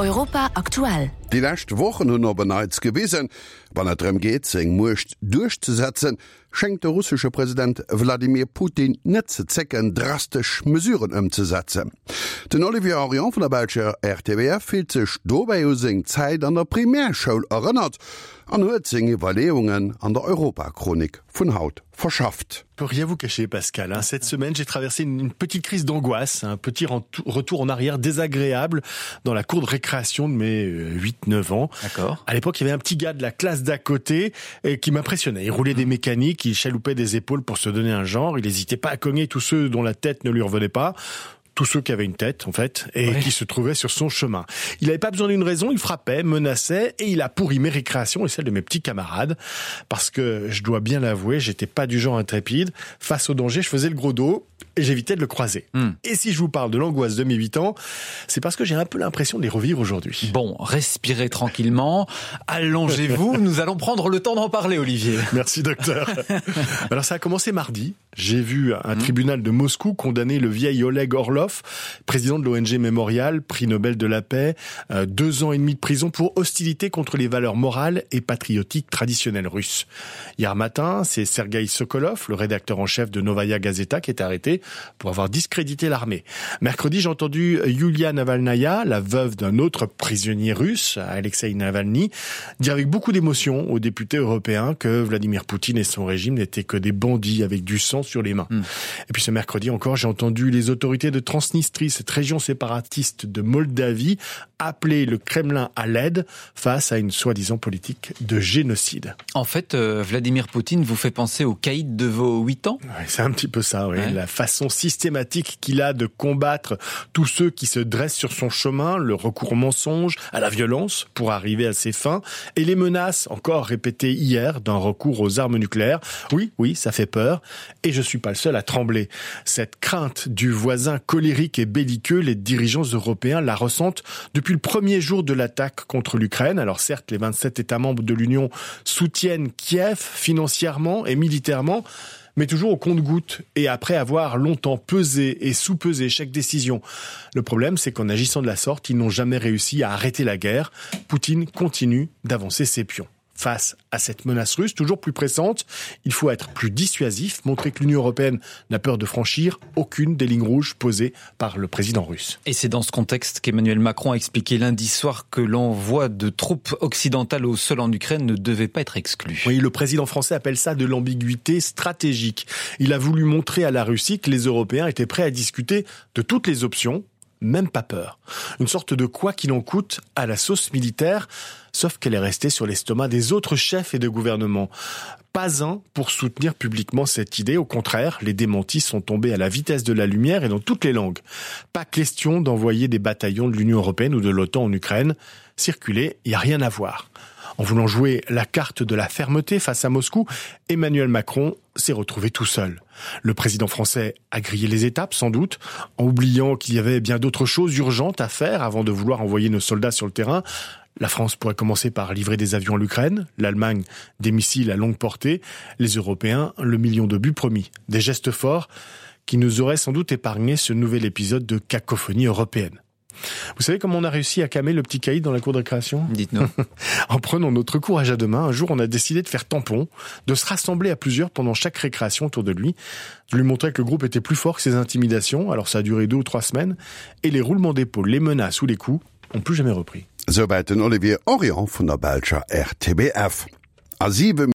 Europa aktuell. Déi lescht Wochen hunn op en Neits gewisen, wann et drëm geet, seng Muecht duerchzesetzen, schéngt de russesche President Wladimir Putin net ze zécken, drastesch Mesuren ëmzesetzen. Den Olivier Henrion vun der belscher RTBF fillt sech dobäi u seng Zäit an der Primärschoul erënnert an huet seng Iwwerleeungen an der Europachronik vun haut verschafft. Pour rien vous cacher Pascal hein, cette semaine j'ai traversé une, une petite crise d'angoisse un petit retour en arrière désagréable dans la cour de récréation de mes 8 euh, 9 ans d'accord à l'époque il y avait un petit gars de la classe d'à côté et qui m'impressionnait il roulait des mécaniques il chaloupait des épaules pour se donner un genre il n'hésitait pas à cogner tous ceux dont la tête ne lui revenait pas tous ceux qui avaient une tête en fait et ouais. qui se trouvaient sur son chemin. Il n'avait pas besoin d'une raison, il frappait, menaçait et il a pourri mes récréations et celles de mes petits camarades parce que je dois bien l'avouer, j'étais pas du genre intrépide. Face au danger, je faisais le gros dos et j'évitais de le croiser. Mm. Et si je vous parle de l'angoisse de mes 8 ans, c'est parce que j'ai un peu l'impression de les revivre aujourd'hui. Bon, respirez tranquillement, allongez-vous, nous allons prendre le temps d'en parler Olivier. Merci docteur. Alors ça a commencé mardi, j'ai vu un mmh. tribunal de Moscou condamner le vieil Oleg Orlov, président de l'ONG Memorial, prix Nobel de la paix, euh, deux ans et demi de prison pour hostilité contre les valeurs morales et patriotiques traditionnelles russes. Hier matin, c'est Sergei Sokolov, le rédacteur en chef de Novaya Gazeta, qui est arrêté pour avoir discrédité l'armée. Mercredi, j'ai entendu Yulia Navalnaya, la veuve d'un autre prisonnier russe, Alexei Navalny, dire avec beaucoup d'émotion aux députés européens que Vladimir Poutine et son régime n'étaient que des bandits avec du sang sur les mains. Mmh. Et puis ce mercredi encore, j'ai entendu les autorités de Transnistrie, cette région séparatiste de Moldavie, appeler le Kremlin à l'aide face à une soi-disant politique de génocide. En fait, euh, Vladimir Poutine vous fait penser au caïd de vos 8 ans ouais, C'est un petit peu ça, oui. ouais. la façon systématique qu'il a de combattre tous ceux qui se dressent sur son chemin, le recours au mensonge, à la violence pour arriver à ses fins et les menaces encore répétées hier d'un recours aux armes nucléaires. Oui, oui, ça fait peur et je suis pas le seul à trembler. Cette crainte du voisin colérique et belliqueux, les dirigeants européens la ressentent depuis le premier jour de l'attaque contre l'Ukraine. Alors certes, les 27 États membres de l'Union soutiennent Kiev financièrement et militairement, mais toujours au compte-gouttes et après avoir longtemps pesé et sous-pesé chaque décision. Le problème, c'est qu'en agissant de la sorte, ils n'ont jamais réussi à arrêter la guerre. Poutine continue d'avancer ses pions face à cette menace russe toujours plus pressante. Il faut être plus dissuasif, montrer que l'Union européenne n'a peur de franchir aucune des lignes rouges posées par le président russe. Et c'est dans ce contexte qu'Emmanuel Macron a expliqué lundi soir que l'envoi de troupes occidentales au sol en Ukraine ne devait pas être exclu. Oui, le président français appelle ça de l'ambiguïté stratégique. Il a voulu montrer à la Russie que les Européens étaient prêts à discuter de toutes les options, même pas peur. Une sorte de quoi qu'il en coûte à la sauce militaire, sauf qu'elle est restée sur l'estomac des autres chefs et de gouvernement. Pas un pour soutenir publiquement cette idée, au contraire, les démentis sont tombés à la vitesse de la lumière et dans toutes les langues. Pas question d'envoyer des bataillons de l'Union européenne ou de l'OTAN en Ukraine. Circuler, il n'y a rien à voir. En voulant jouer la carte de la fermeté face à Moscou, Emmanuel Macron s'est retrouvé tout seul. Le président français a grillé les étapes, sans doute, en oubliant qu'il y avait bien d'autres choses urgentes à faire avant de vouloir envoyer nos soldats sur le terrain. La France pourrait commencer par livrer des avions à l'Ukraine, l'Allemagne des missiles à longue portée, les Européens le million de buts promis. Des gestes forts qui nous auraient sans doute épargné ce nouvel épisode de cacophonie européenne. Vous savez comment on a réussi à calmer le petit caïd dans la cour de récréation Dites-nous. en prenant notre courage à deux mains, un jour on a décidé de faire tampon, de se rassembler à plusieurs pendant chaque récréation autour de lui, de lui montrer que le groupe était plus fort que ses intimidations. Alors ça a duré deux ou trois semaines et les roulements d'épaule, les menaces ou les coups ont plus jamais repris. Souwäit den Olivier Henrion vun der belscher RTBF. A 7.